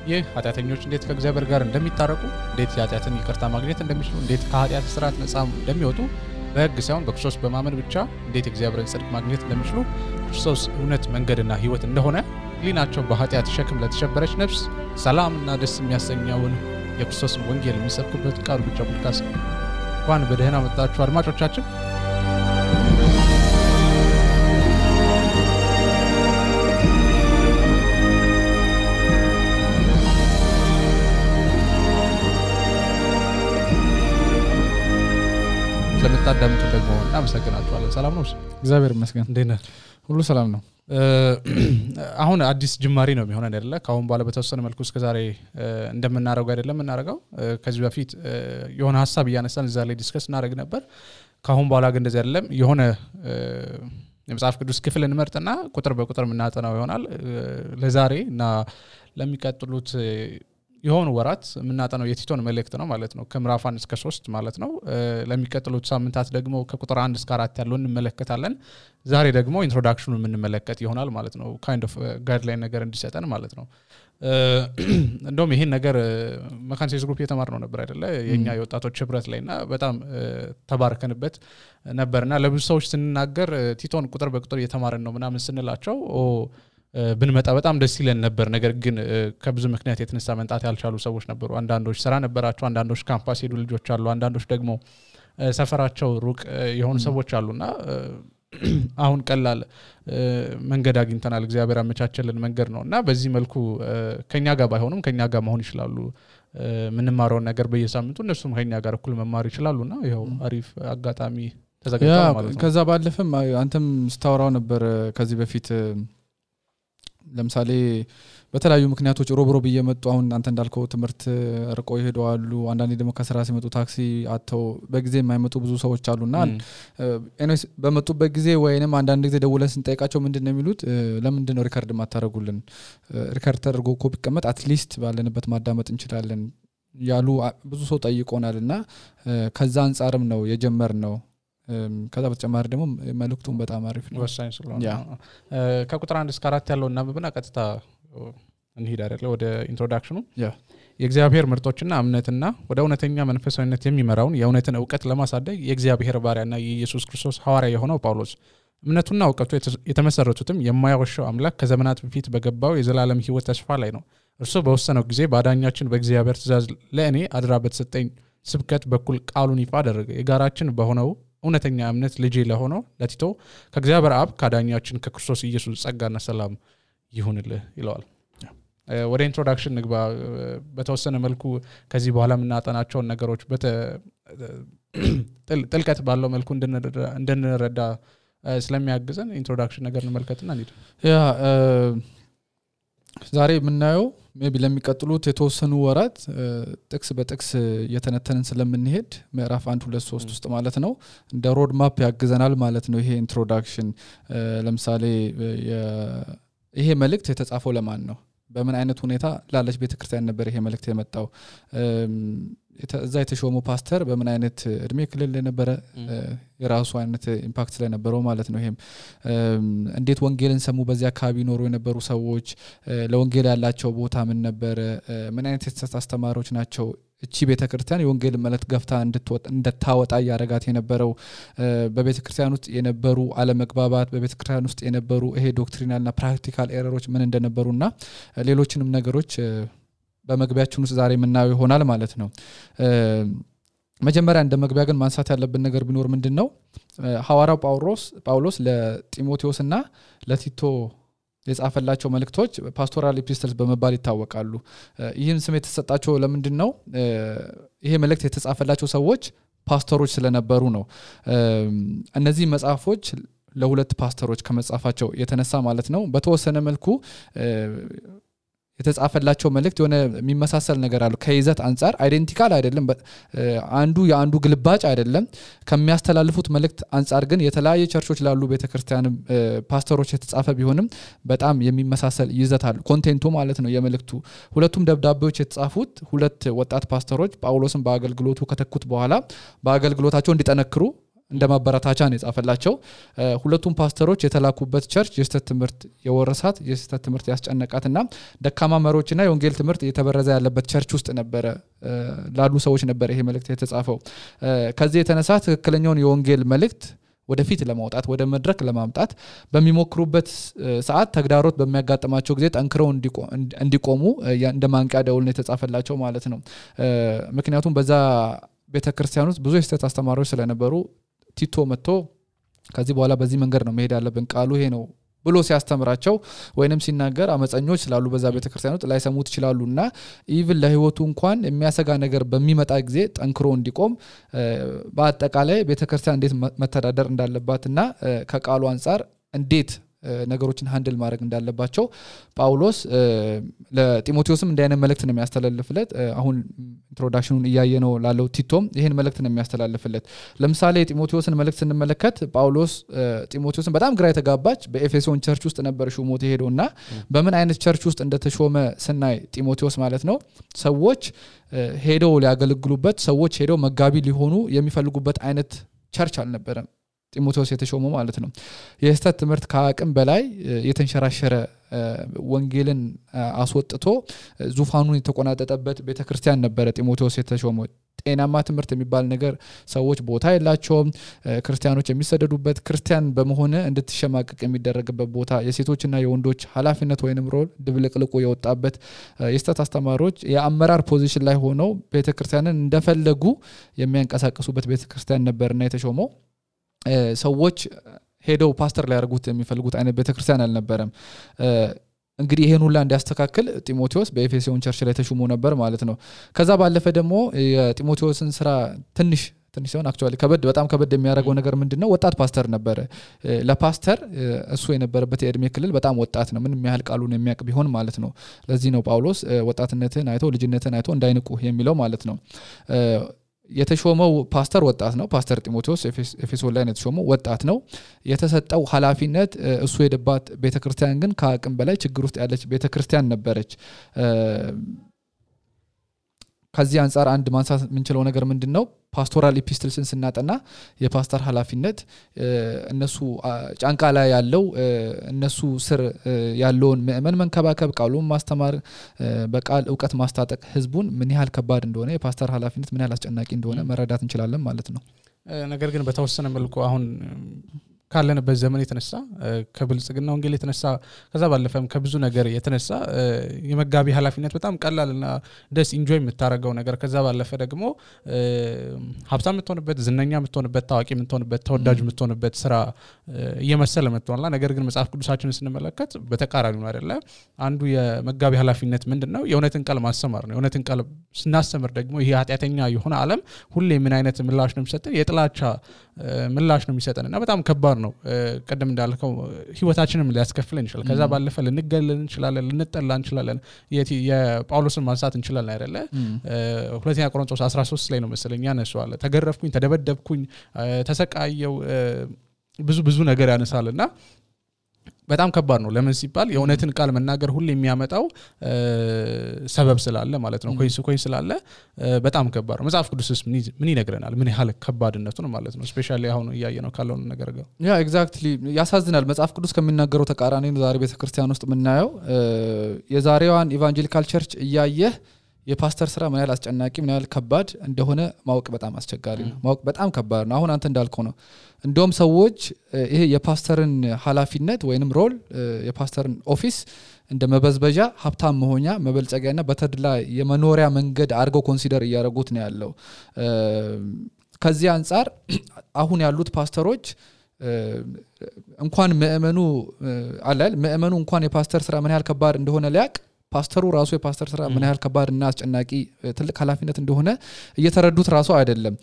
ይህ ኃጢአተኞች እንዴት ከእግዚአብሔር ጋር እንደሚታረቁ እንዴት ኃጢአትን ይቅርታ ማግኘት እንደሚችሉ እንዴት ከኃጢአት ስርዓት ነፃ እንደሚወጡ በሕግ ሳይሆን በክርስቶስ በማመን ብቻ እንዴት እግዚአብሔርን ጽድቅ ማግኘት እንደሚችሉ ክርስቶስ እውነት መንገድና ሕይወት እንደሆነ ሊናቸው በኃጢአት ሸክም ለተሸበረች ነፍስ ሰላምና ደስ የሚያሰኘውን የክርስቶስን ወንጌል የሚሰብክበት ቃሉ ብቻ ፖድካስት ነው። እንኳን በደህና መጣችሁ አድማጮቻችን። ስለምታዳምጡ ደግሞ እናመሰግናችኋለን። ሰላም ነው? እግዚአብሔር ይመስገን። እንዴት ነህ? ሁሉ ሰላም ነው። አሁን አዲስ ጅማሬ ነው የሚሆነን አይደለ? ካሁን በኋላ በተወሰነ መልኩ እስከዛሬ እንደምናረጋው አይደለም እናረጋው። ከዚህ በፊት የሆነ ሐሳብ እያነሳን እዛ ላይ ዲስከስ እናደርግ ነበር። ካሁን በኋላ ግን እንደዚህ አይደለም። የሆነ የመጽሐፍ ቅዱስ ክፍል እንመርጥና ቁጥር በቁጥር የምናጠናው ይሆናል። ለዛሬ እና ለሚቀጥሉት የሆኑ ወራት የምናጠናው የቲቶን መልእክት ነው ማለት ነው። ከምዕራፍ 1 እስከ 3 ማለት ነው። ለሚቀጥሉት ሳምንታት ደግሞ ከቁጥር 1 እስከ 4 ያለውን እንመለከታለን። ዛሬ ደግሞ ኢንትሮዳክሽኑን የምንመለከት ይሆናል ማለት ነው። ካይንድ ኦፍ ጋይድላይን ነገር እንዲሰጠን ማለት ነው። እንደውም ይሄን ነገር መካን ሴስ ግሩፕ የተማርነው ነበር አይደለ? የኛ የወጣቶች ህብረት ላይና በጣም ተባርከንበት ነበርና ለብዙ ሰዎች ስንናገር ቲቶን ቁጥር በቁጥር እየተማረን ነው ምናምን ስንላቸው ብንመጣ በጣም ደስ ይለን ነበር። ነገር ግን ከብዙ ምክንያት የተነሳ መንጣት ያልቻሉ ሰዎች ነበሩ። አንዳንዶች ስራ ነበራቸው፣ አንዳንዶች ካምፓስ ሄዱ ልጆች አሉ፣ አንዳንዶች ደግሞ ሰፈራቸው ሩቅ የሆኑ ሰዎች አሉና አሁን ቀላል መንገድ አግኝተናል። እግዚአብሔር አመቻቸልን መንገድ ነውና በዚህ መልኩ ከኛ ጋር ባይሆኑም ከኛ ጋር መሆን ይችላሉ። ምንማረው ነገር በየሳምንቱ እነሱም ከኛ ጋር እኩል መማር ይችላሉና ይሄው አሪፍ አጋጣሚ ተዘጋጅቷል ማለት ነው። ከዛ ባለፈም አንተም ስታወራው ነበር ከዚህ በፊት ለምሳሌ በተለያዩ ምክንያቶች ሮብሮብ እየመጡ አሁን አንተ እንዳልከው ትምህርት ርቆ ይሄዳሉ። አንዳንዴ ደግሞ ከስራ ሲመጡ ታክሲ አጥተው በጊዜ የማይመጡ ብዙ ሰዎች አሉና ኤኒዌይስ በመጡበት ጊዜ ወይንም አንዳንድ ጊዜ ደውለን ስንጠይቃቸው ምንድነው የሚሉት? ለምንድነው ሪከርድ ማታረጉልን? ሪከርድ ተደርጎ ኮፒ ቀመጥ አትሊስት ባለንበት ማዳመጥ እንችላለን ያሉ ብዙ ሰው ጠይቆናልና ከዛ አንፃርም ነው የጀመርነው። ከዛ በተጨማሪ ደግሞ መልእክቱን በጣም አሪፍ ነው፣ ወሳኝ ስለሆነ ከቁጥር 1 እስከ 4 ያለው እናብብና ቀጥታ እንሂድ አይደለ ወደ ኢንትሮዳክሽኑ። የእግዚአብሔር ምርጦችና እምነትና ወደ እውነተኛ መንፈሳዊነት የሚመራውን የእውነትን ዕውቀት ለማሳደግ የእግዚአብሔር ባሪያና የኢየሱስ ክርስቶስ ሐዋርያ የሆነው ጳውሎስ እምነቱና ዕውቀቱ የተመሰረቱትም የማያወሻው አምላክ ከዘመናት በፊት በገባው የዘላለም ሕይወት ተስፋ ላይ ነው። እርሱ በወሰነው ጊዜ ባዳኛችን በእግዚአብሔር ትእዛዝ ለእኔ አድራ በተሰጠኝ ስብከት በኩል ቃሉን ይፋ አደረገ። የጋራችን በሆነው እውነተኛ እምነት ልጅ ለሆነው ለቲቶ ከእግዚአብሔር አብ ካዳኛችን ከክርስቶስ ኢየሱስ ጸጋና ሰላም ይሁንልህ ይለዋል። ወደ ኢንትሮዳክሽን ንግባ። በተወሰነ መልኩ ከዚህ በኋላ የምናጠናቸውን ነገሮች ጥልቀት ባለው መልኩ እንድንረዳ ስለሚያግዘን ኢንትሮዳክሽን ነገር እንመልከትና እንሂድ። ዛሬ የምናየው ሜቢ ለሚቀጥሉት የተወሰኑ ወራት ጥቅስ በጥቅስ የተነተንን ስለምንሄድ ምዕራፍ 1 2 3 ውስጥ ማለት ነው እንደ ሮድ ማፕ ያግዘናል ማለት ነው። ይሄ ኢንትሮዳክሽን ለምሳሌ ይሄ መልእክት የተጻፈው ለማን ነው? በምን አይነት ሁኔታ ላለች ቤተክርስቲያን ነበር ይሄ መልእክት የመጣው? እዛ የተሾመው ፓስተር በምን አይነት እድሜ ክልል ነበር? የራሱ አይነት ኢምፓክት ስለነበረው ማለት ነው። ይሄም እንዴት ወንጌልን ሰሙ? በዚያ አካባቢ ኖሩ የነበሩ ሰዎች ለወንጌል ያላቸው ቦታ ምን ነበር? ምን አይነት አስተማሪዎች ናቸው? እቺ ቤተክርስቲያን የወንጌል መልእክት ገፍታ እንድታወጣ ያረጋት የነበረው በቤተክርስቲያን ውስጥ የነበሩ አለመግባባት፣ በቤተክርስቲያን ውስጥ የነበሩ ይሄ ዶክትሪናልና ፕራክቲካል ኤረሮች ምን እንደነበሩና ሌሎችንም ነገሮች በመግቢያችን ውስጥ ዛሬ የምናየው ይሆናል ማለት ነው። መጀመሪያ እንደ መግቢያ ግን ማንሳት ያለብን ነገር ቢኖር ምንድነው ሐዋርያው ጳውሎስ ለጢሞቴዎስና ለቲቶ የጻፈላቸው መልእክቶች ፓስቶራል ኤፒስትልስ በመባል ይታወቃሉ። ይህን ስም የተሰጣቸው ለምንድነው? ይሄ መልእክት የተጻፈላቸው ሰዎች ፓስተሮች ስለነበሩ ነው። እነዚህ መጽሐፎች ለሁለት ፓስተሮች ከመጻፋቸው የተነሳ ማለት ነው በተወሰነ መልኩ የተጻፈላቸው መልእክት የሆነ የሚመሳሰል ነገር አለው። ከይዘት አንፃር አይደንቲካል አይደለም፣ አንዱ የአንዱ ግልባጭ አይደለም። ከሚያስተላልፉት መልእክት አንፃር ግን የተለያየ ቸርቾች ላሉ ቤተክርስቲያን ፓስተሮች የተጻፈ ቢሆንም በጣም የሚመሳሰል ይዘት አለው ኮንቴንቱ ማለት ነው የመልእክቱ። ሁለቱም ደብዳቤዎች የተጻፉት ሁለት ወጣት ፓስተሮች ጳውሎስን በአገልግሎቱ ከተኩት በኋላ በአገልግሎታቸው እንዲጠነክሩ እንደ ማበረታቻ ነው የጻፈላቸው ሁለቱም ፓስተሮች የተላኩበት ቸርች የስተት ትምህርት የወረሳት የስተት ትምህርት ያስጨነቃትና ደካማ መሪዎችና የወንጌል ትምህርት የተበረዘ ያለበት ቸርች ውስጥ ነበር ላሉ ሰዎች ነበር ይሄ መልእክት የተጻፈው ከዚህ የተነሳ ትክክለኛውን የወንጌል መልእክት ወደፊት ለማውጣት ወደ መድረክ ለማምጣት በሚሞክሩበት ሰዓት ተግዳሮት በሚያጋጥማቸው ጊዜ ጠንክረው እንዲቆሙ እንደማንቂያ ደውል ነው የተጻፈላቸው ማለት ነው ምክንያቱም በዛ ቤተክርስቲያን ውስጥ ብዙ የስተት አስተማሪዎች ስለነበሩ ቲቶ መጥቶ ከዚህ በኋላ በዚህ መንገድ ነው መሄድ ያለብን ቃሉ ይሄ ነው ብሎ ሲያስተምራቸው ወይንም ሲናገር አመፀኞች ስላሉ በዛ ቤተክርስቲያን ውስጥ ላይሰሙት ይችላሉና ኢቭን ለህይወቱ እንኳን የሚያሰጋ ነገር በሚመጣ ጊዜ ጠንክሮ እንዲቆም በአጠቃላይ ቤተክርስቲያን እንዴት መተዳደር እንዳለባትና ከቃሉ አንፃር እንዴት ነገሮችን ሃንድል ማድረግ እንዳለባቸው ጳውሎስ ለጢሞቴዎስም እንደ አይነት መልእክት ነው የሚያስተላልፍለት አሁን ኢንትሮዳክሽኑን ያያየነው ላለው ቲቶም ይሄን መልእክት ነው የሚያስተላልፍለት ለምሳሌ ጢሞቴዎስን መልእክት ስንመለከት ጳውሎስ ጢሞቴዎስን በጣም ግራ የተጋባች በኤፌሶን ቸርች ውስጥ ነበር ሹሞት ሄዶና በምን አይነት ቸርች ውስጥ እንደተሾመ ስናይ ጢሞቴዎስ ማለት ነው ሰዎች ሄደው ሊያገለግሉበት ሰዎች ሄደው መጋቢ ሊሆኑ የሚፈልጉበት አይነት ቸርች አልነበረም ጢሞቴዎስ የተሾመው ማለት ነው የስተት ትምህርት ከአቅም በላይ የተንሸራሸረ ወንጌልን አስወጥቶ ዙፋኑን የተቆናጠጠበት ቤተክርስቲያን ነበር ጢሞቴዎስ የተሾመው ጤናማ ትምህርት የሚባል ነገር ሰዎች ቦታ የላቸውም ክርስቲያኖች የሚሰደዱበት ክርስቲያን በመሆነ እንድትሸማቀቅ የሚደረግበት ቦታ የሴቶችና የወንዶች ኃላፊነት ወይንም ሮል ድብልቅልቁ የወጣበት የስተት አስተማሪዎች የአመራር ፖዚሽን ላይ ሆነው ቤተክርስቲያንን እንደፈለጉ የሚያንቀሳቅሱበት ቤተክርስቲያን ነበርና የተሾመው ሰዎች ሄደው ፓስተር ሊያርጉት የሚፈልጉት አይነት ቤተክርስቲያን አልነበረም እንግዲህ ይሄን ሁሉ እንዲያስተካክል ጢሞቴዎስ በኤፌሶን ቸርች ላይ ተሹሞ ነበር ማለት ነው ከዛ ባለፈ ደግሞ የጢሞቴዎስን ስራ ትንሽ ሲሆን አክቹአሊ በጣም ከበድ የሚያደርገው ነገር ምንድነው ወጣት ፓስተር ነበር ለፓስተር እሱ የነበረበት የእድሜ ክልል በጣም ወጣት ነው ምንም ያህል ቃሉን የሚያቅ ቢሆን ማለት ነው ለዚህ ነው ጳውሎስ ወጣትነትን አይቶ ልጅነትን አይቶ እንዳይንቁ የሚለው ማለት ነው የተሾመው ፓስተር ወጣት ነው ፓስተር ጢሞቴዎስ ኤፌሶን ላይ ነው የተሾመው ወጣት ነው የተሰጠው ኃላፊነት እሱ የደባት ቤተክርስቲያን ግን ከአቅም በላይ ችግር ውስጥ ያለች ቤተክርስቲያን ነበረች ከዚህ አንፃር አንድ ማንሳት ምንችለው ነገር ምንድነው ፓስቶራል ኢፒስትልስን ስናጠና የፓስተር ኃላፊነት እነሱ ጫንቃ ላይ ያለው እነሱ ስር ያለውን ምእመን መንከባከብ ቃሉን ማስተማር በቃል ዕውቀት ማስታጠቅ ህዝቡን ምን ያህል ከባድ እንደሆነ የፓስተር ኃላፊነት ምን ያህል አስጨናቂ እንደሆነ መረዳት እንችላለን ማለት ነው ነገር ግን በተወሰነ መልኩ አሁን ካለንበት ዘመን የተነሳ ከብልጽግና ወንጌል የተነሳ ከዛ ባለፈም ከብዙ ነገር የተነሳ የመጋቢ ኃላፊነት በጣም ቀላልና ደስ ኢንጆይ የምታረጋው ነገር ከዛ ባለፈ ደግሞ ሀብታም የምትሆንበት ዝነኛ የምትሆንበት ታዋቂ የምትሆንበት ተወዳጅ የምትሆንበት ስራ እየመሰለ መጥቷልና ነገር ግን መጽሐፍ ቅዱሳችንን ስንመለከት በተቃራኒው ነው አይደለ አንዱ የመጋቢ ኃላፊነት ምንድነው የእውነትን ቃል ማስተማር ነው የእውነትን ቃል ስናስተምር ደግሞ ይሄ ኃጢያተኛ የሆነ ዓለም ሁሌ ምን አይነት ምላሽ ነው የሚሰጠን የጥላቻ ምላሽ ነው የሚሰጠንና በጣም ከባድ ነው ቀደም እንዳልከው ህይወታችንን ሊያስከፍለን ይችላል ከዛ ባለፈ ልንገለል እንችላለን ልንጠላ እንችላለን የጳውሎስን ማንሳት እንችላለን አይደለ ሁለተኛ ቆሮንቶስ 13 ላይ ነው መሰለኝ ያነሳዋል ተገረፍኩኝ ተደበደብኩኝ ተሰቃየው ብዙ ነገር ያነሳልና በጣም ከባድ ነው ለምን ሲባል የእውነትን ቃል መናገር ሁሉ የሚያመጣው ሰበብ ስላለ ማለት ነው ኮይስ ስላለ በጣም ከባድ ነው መጽሐፍ ቅዱስስ ምን ይነግረናል ምን ያህል ከባድነቱ ነው ማለት ነው ስፔሻሊ አሁን ያያየነው ካለው ነገር ጋር ያ ኤግዛክትሊ ያሳዝናል መጽሐፍ ቅዱስ ከሚናገረው ተቃራኒ ነው ዛሬ ቤተክርስቲያን ውስጥ የምናየው የዛሬዋን ኢቫንጀሊካል ቸርች እያየህ የፓስተር ስራ ምን ያህል አስጨናቂ ምን ያህል ከባድ እንደሆነ ማወቅ በጣም አስቸጋሪ ነው ማወቅ በጣም ከባድ ነው አሁን አንተ እንዳልከው ነው እንደውም ሰዎች ይሄ የፓስተርን ኃላፊነት ወይንም ሮል የፓስተርን ኦፊስ እንደ መበዝበጃ ሀብታም መሆኛ መበልጸጊያና በተድላ የመኖሪያ መንገድ አድርገው ኮንሲደር እያደረጉት ነው ያለው ከዚህ አንፃር አሁን ያሉት ፓስተሮች እንኳን ምእመኑ እንኳን የፓስተር ስራ ምን ያህል ከባድ እንደሆነ ሊያቅ ፓስተሩ ራሱ የፓስተር ስራ ምን ያህል ከባድና አስጨናቂ ትልቅ ኃላፊነት እንደሆነ እየተረዱት ራሱ አይደለም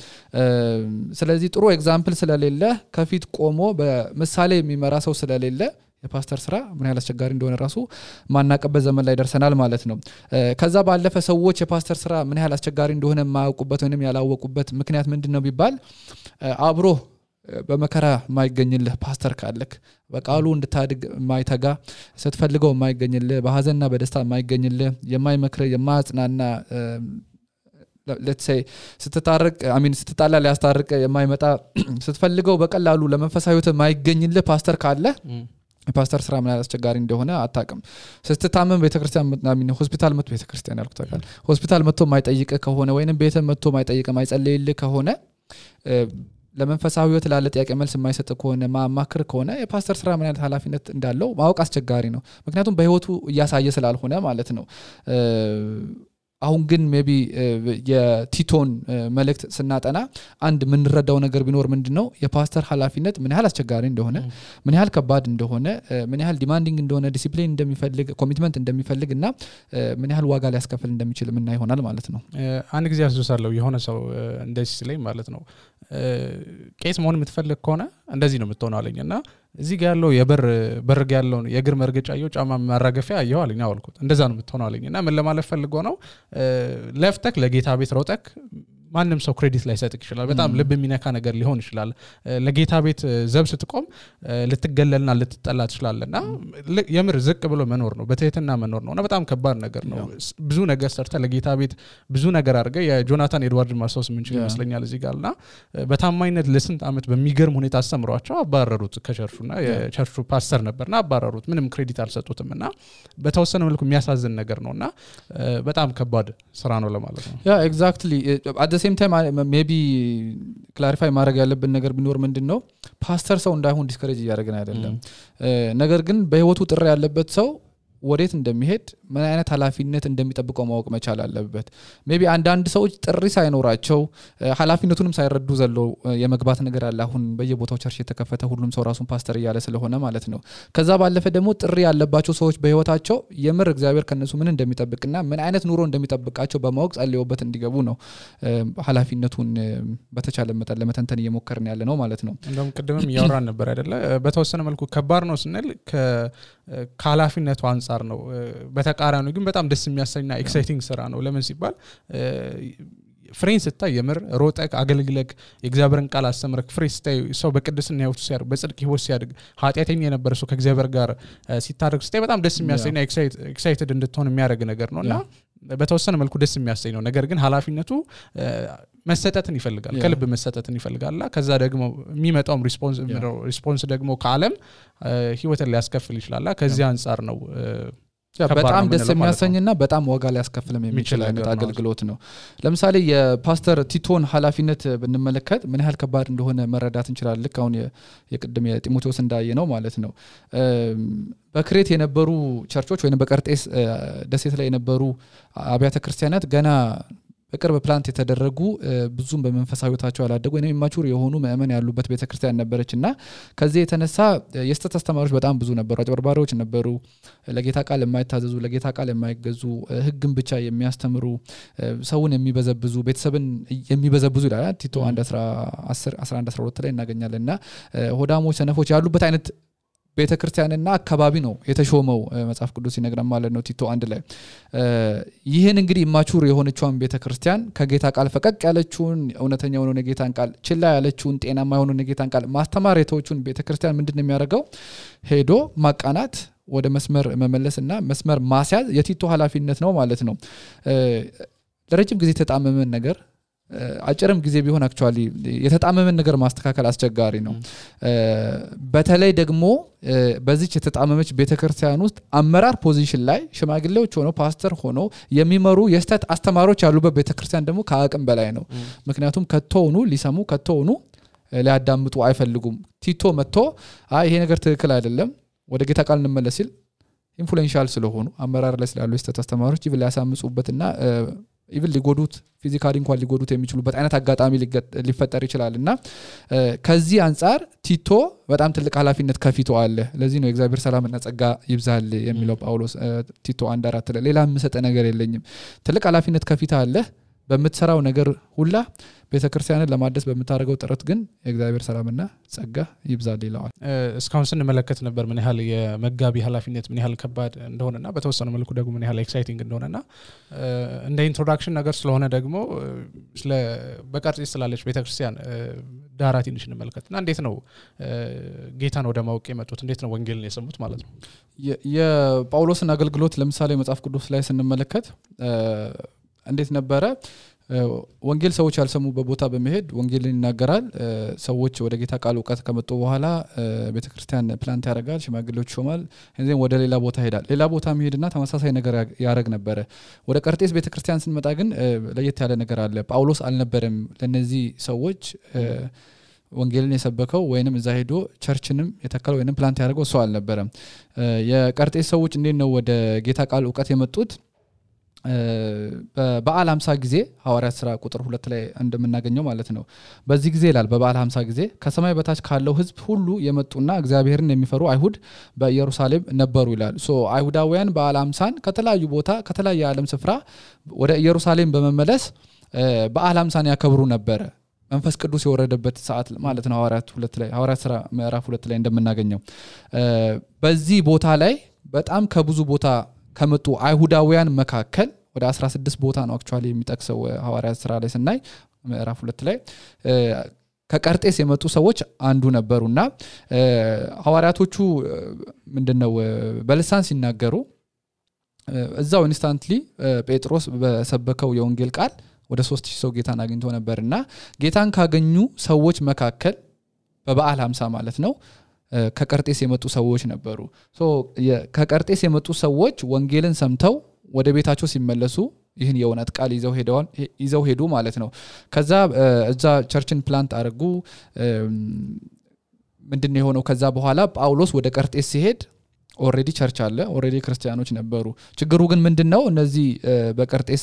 ስለዚህ ጥሩ ኤግዛምፕል ስለሌለ ከፊት ቆሞ በምሳሌ የሚመራ ሰው ስለሌለ የፓስተር ስራ ምን ያህል አስቸጋሪ እንደሆነ ራሱ ማናቀበት ዘመን ላይ ደርሰናል ማለት ነው ከዛ ባለፈ ሰዎች የፓስተር ስራ ምን ያህል አስቸጋሪ እንደሆነ ማያውቁበት ወይንም ያላወቁበት ምክንያት ምንድነው ቢባል አብሮ በመከራ ማይገኝልህ ፓስተር ካለክ በቃሉ እንድታድግ ማይተጋ ስትፈልገው ማይገኝልህ በሐዘንና በደስታ ማይገኝልህ የማይመክር የማጽናና let's say ስትታረቅ ስትጣላ ሊያስታርቅ የማይመጣ ስትፈልገው በቀላሉ ለመንፈሳዊ ህይወት የማይገኝልህ ፓስተር ካለ ፓስተር ስራ ምን አስቸጋሪ እንደሆነ አታውቅም ስትታመም ቤተክርስቲያን ሆስፒታል መጥቶ ቤተክርስቲያን ያልኩት ታውቃል ሆስፒታል መጥቶ የማይጠይቅ ከሆነ ወይንም ቤተ መጥቶ የማይጠይቅ የማይጸልይልህ ከሆነ ለመንፈሳዊ ህይወት ላለ ጥያቄ መልስ የማይሰጥ ከሆነ ማማክር ከሆነ የፓስተር ስራ ምን አይነት ኃላፊነት እንዳለው ማወቅ አስቸጋሪ ነው ምክንያቱም በህይወቱ ያሳየ ስላልሆነ ማለት ነው አሁን ግን ሜቢ የቲቶን መልእክት ስናጠና አንድ ምን ረዳው ነገር ቢኖር ምንድነው የፓስተር ኃላፊነት ምን ያህል አስቸጋሪ እንደሆነ ምን ያህል ከባድ እንደሆነ ምን ያህል ዲማንዲንግ እንደሆነ ዲሲፕሊን እንደሚፈልግ ኮሚትመንት እንደሚፈልግና ምን ያህል ዋጋ ሊያስከፍል እንደሚችል ምን ይሆናል ማለት ነው አንድ ጊዜ አስደሳለሁ የሆነ ሰው እንደዚህ ሲለኝ ማለት ነው ቄስ መሆን የምትፈልግ ከሆነ እንደዚህ ነው የምትሆነው አለኝና እዚህ ጋር ያለው የበር ጋር ያለው የእግር መርገጫየው ጫማ ማራገፊያ ያየው አለኝ አልኩት እንደዛ ነው የምትሆነው አለኝና ምን ለማለት ፈልጎ ነው ለፍተክ ለጌታ ቤት ሮጠክ ማንንም ሰው ክሬዲት ላይ ሰጥክ ይችላል በጣም ልብ የሚነካ ነገር ሊሆን ይችላል ለጌታ ቤት ዘብ ስትቆም ልትገለልና ልትጠላ ትችላለና የምር ዝቅ ብሎ መኖር ነው በትህትና መኖር ነውና በጣም ከባድ ነገር ነው ብዙ ነገር ሰርተ ለጌታ ቤት ብዙ ነገር አድርገ የጆናታን ኤድዋርድ ማርሶስ ምን ይችላል ይመስለኛል እዚህ ጋርና በታማኝነት ለስንት አመት በሚገርም ሁኔታ አስተምሯቸው አባረሩት ከቸርቹና የቸርቹ ፓስተር ነበርና አባረሩት ምንም ክሬዲት አልሰጡትምና በተወሰነ መልኩ የሚያሳዝን ነገር ነውና በጣም ከባድ ስራ ነው ለማለት ነው ያ ኤግዛክትሊ same time maybe clarify ማድረግ ያለብን ነገር ቢኖር ምንድነው ፓስተር ሰው እንዳይሆን ዲስከሬጅ ያደርገን አይደለም ነገር ግን በህይወቱ ጥሪ ያለበት ሰው ወዴት እንደሚሄድ ምን አይነት ኃላፊነት እንደሚጠብቀው ማወቅ መቻል አለበት ሜቢ አንዳንድ ሰዎች ጥሪ ሳይኖራቸው ኃላፊነቱንም ሳይረዱ ዘለው የመግባት ነገር አለ አሁን በየቦታው ቸርች የተከፈተ ሁሉም ሰው ራሱን ፓስተር እያለ ስለሆነ ማለት ነው ከዛ ባለፈ ደግሞ ጥሪ ያለባቸው ሰዎች በህይወታቸው የምር እግዚአብሔር ከነሱ ምን እንደሚጠብቅና ምን አይነት ኑሮ እንደሚጠብቃቸው በማወቅ ጸልየውበት እንዲገቡ ነው ኃላፊነቱን በተቻለ መጠን ለመተንተን እየሞከርን ያለ ነው ማለት ነው እንደውም ቅድምም ያወራን ነበር አይደለ በተወሰነ መልኩ ከባድ ነው ስንል ከኃላፊነቱ አንፃር ነው በተቃራኒው ግን በጣም ደስ የሚያሰኝና ኤክሳይቲንግ ስራ ነው ለምን ሲባል ፍሬን ስታይ የምር ሮጠክ አገልግለክ የእግዚአብሔርን ቃል አስተምረክ ፍሬ ስታይ ሰው በቅድስና ህይወቱ ሲያድግ በጽድቅ ህይወት ሲያድግ ኃጢአተኛ የነበረ ሰው ከእግዚአብሔር ጋር ሲታረቅ ስታይ በጣም ደስ የሚያሰኝና ኤክሳይትድ እንድትሆን የሚያደርግ ነገር ነውና በተወሰነ መልኩ ደስ የሚያሰኝ ነው ነገር ግን ኃላፊነቱ መሰጠትን ይፈልጋል ከልብ መሰጠትን ይፈልጋልና ከዛ ደግሞ የሚመጣው ሪስፖንስ ደግሞ ከዓለም ህይወትን ሊያስከፍል ይችላልና ከዚህ አንፃር ነው በጣም ደስ የሚያሰኝና በጣም ዋጋ ሊያስከፍልም የሚችል አይነት አገልግሎት ነው ለምሳሌ የፓስተር ቲቶን ኃላፊነት ብንመለከት ምን ያህል ከባድ እንደሆነ መረዳት እንችላለን ልክ አሁን የቅድም የጢሞቴዎስ እንዳየ ነው ማለት ነው በክሬት የነበሩ ቸርቾች ወይንም በቀርጤስ ደሴት ላይ የነበሩ አብያተ ክርስቲያናት ገና በቅርብ ፕላንት የተደረጉ ብዙም በመንፈሳዊታቸው ያላደጉ ወይንም ኢማቹር የሆኑ ምእመን ያሉበት ቤተክርስቲያን ነበረችና ከዚህ የተነሳ የስተት አስተማሪዎች በጣም ብዙ ነበሩ አጭበርባሪዎች ነበሩ ለጌታ ቃል የማይታዘዙ ለጌታ ቃል የማይገዙ ህግን ብቻ የሚያስተምሩ ሰውን የሚበዘብዙ ቤተሰብን የሚበዘብዙ ይላል ቲቶ 1:11-12 ላይ እናገኛለንና ሆዳሞች ሰነፎች ያሉበት አይነት ቤተክርስቲያንና አካባቢ ነው የተሾመው መጽሐፍ ቅዱስ ይነግራል ማለት ነው ቲቶ 1 ላይ ይሄን እንግዲህ ኢማቹር የሆነችውን ቤተክርስቲያን ከጌታ ቃል ፈቀቅ ያለችውን እውነተኛውን የጌታን ቃል ችላ ያለችውን ጤናማ የሆነውን የጌታን ቃል ማስተማር የተወቹን ቤተክርስቲያን ምንድነው የሚያደርገው ሄዶ ማቃናት ወደ መስመር መመለስና መስመር ማስያዝ የቲቶ ኃላፊነት ነው ማለት ነው ለረጅም ጊዜ ተጣመመን ነገር አጭርም ጊዜ ቢሆን አክቹአሊ የተጣመመን ነገር ማስተካከል አስቸጋሪ ነው በተለይ ደግሞ በዚች የተጣመመች ቤተክርስቲያን ውስጥ አመራር ፖዚሽን ላይ ሽማግሌዎች ሆነው ፓስተር ሆነው የሚመሩ የስተት አስተማሪዎች ያሉበት ቤተክርስቲያን ደግሞ ከአቅም በላይ ነው ምክንያቱም ከተውኑ ሊሰሙ ከተውኑ ሊያዳምጡ አይፈልጉም ቲቶ መጥቶ ይሄ ነገር ትክክል አይደለም ወደ ጌታ ቃል እንመለስ ሲል ኢንፍሉዌንሻል ስለሆኑ አመራር ላይ ስላሉ የስተት አስተማሪዎች ይብል ያሳምጹበትና ኢቭን ሊጎዱት ፊዚካሊ እንኳን ሊጎዱት የሚችሉበት አይነት አጋጣሚ ሊፈጠር ይችላልና ከዚህ አንፃር ቲቶ በጣም ትልቅ ኃላፊነት ከፊቱ አለ ለዚህ ነው እግዚአብሔር ሰላምና ጸጋ ይብዛል የሚለው ጳውሎስ ቲቶ 1:4 ላይ ሌላ ምሰጠ ነገር የለኝም ትልቅ ኃላፊነት ከፊቱ አለ በመትሰራው ነገር ሁላ ቤተክርስቲያንን ለማደስ በመታረገው ጥረት ግን የእግዚአብሔር ሰላምና ጸጋ ይብዛል ይላል እስካሁን ስንመለከት ነበር ምን ያህል የመጋቢ ኃላፊነት ምን ያህል ከባድ እንደሆነና በተወሰነ መልኩ ደግሞ ምን ያህል ኤክሳይቲንግ እንደሆነና እንደ ኢንትሮዳክሽን ነገር ስለሆነ ደግሞ ስለ በቀርጤስ ስላለች ቤተክርስቲያን ዳራ ትንሽ እንመልከትና እንዴት ነው ጌታን ወደ ማወቅ የመጡት እንዴት ነው ወንጌልን የሰሙት ማለት ነው የጳውሎስን አገልግሎት ለምሳሌ መጽሐፍ ቅዱስ ላይ ስንመለከት እንዴት ነበረ ወንጌል ሰዎች ያልሰሙበት ቦታ በመሄድ ወንጌልን ይናገራል ሰዎች ወደ ጌታ ቃል ዕውቀት ከመጡ በኋላ ቤተክርስቲያን ፕላንት ያደርጋል ሽማግሌዎች ሾማል እንዴም ወደ ሌላ ቦታ ሄዳል ሌላ ቦታ መሄድና ተመሳሳይ ነገር ያረግ ነበር ወደ ቀርጤስ ቤተክርስቲያን ስንመጣ ግን ለየት ያለ ነገር አለ ጳውሎስ አልነበረም ለነዚህ ሰዎች ወንጌልን የሰበከው ወይንም እዛ ሄዶ ቸርችንም የተከለው ወይንም ፕላንት ያደርገው ሰው አልነበረም የቀርጤስ ሰዎች እንዴት ነው ወደ ጌታ ቃል ዕውቀት የመጡት በበዓል 50 ጊዜ ሐዋርያት ሥራ ቁጥር 2 ላይ እንደምናገኘው ማለት ነው በዚህ ጊዜ ይላል በበዓል 50 ጊዜ ከሰማይ በታች ካለው ህዝብ ሁሉ የመጡና እግዚአብሔርን የሚፈሩ አይሁድ በኢየሩሳሌም ነበሩ ይላል ሶ አይሁዳውያን በዓል 50ን ከተለያዩ ቦታ ከተለያየ ዓለም ስፍራ ወደ ኢየሩሳሌም በመመለስ በዓል 50ን ያከብሩ ነበር መንፈስ ቅዱስ የወረደበት ሰዓት ማለት ነው ሐዋርያት ሥራ ምዕራፍ 2 ላይ እንደምናገኘው በዚህ ቦታ ላይ በጣም ከብዙ ቦታ ከመጡ አይሁዳውያን መካከል ወደ 16 ቦታ ነው አክቹአሊ የሚጠቅሰው ሐዋርያት ሥራ ላይ ስናይ ምዕራፍ 2 ላይ ከቀርጤስ የመጡ ሰዎች አንዱ ነበሩና ሐዋርያቶቹ ምንድነው በልሳን ሲናገሩ እዛው ኢንስታንትሊ ጴጥሮስ በሰበከው የወንጌል ቃል ወደ 3000 ሰው ጌታን አግኝቶ ነበርና ጌታን ካገኙ ሰዎች መካከል በበዓል 50 ማለት ነው ከቀርጤስ የመጡ ሰዎች ነበሩ ሶ ከቀርጤስ የመጡ ሰዎች ወንጌልን ሰምተው ወደ ቤታቸው ሲመለሱ ይህን የእውነት ቃል ይዘው ሄዱ ማለት ነው ከዛ እዛ ቸርችን ፕላንት አድርጉ ምንድነው የሆነው ከዛ በኋላ ጳውሎስ ወደ ቀርጤስ ሲሄድ ኦሬዲ ቸርች አለ ኦሬዲ ክርስቲያኖች ነበሩ ችግሩ ግን ምንድነው እነዚህ በቀርጤስ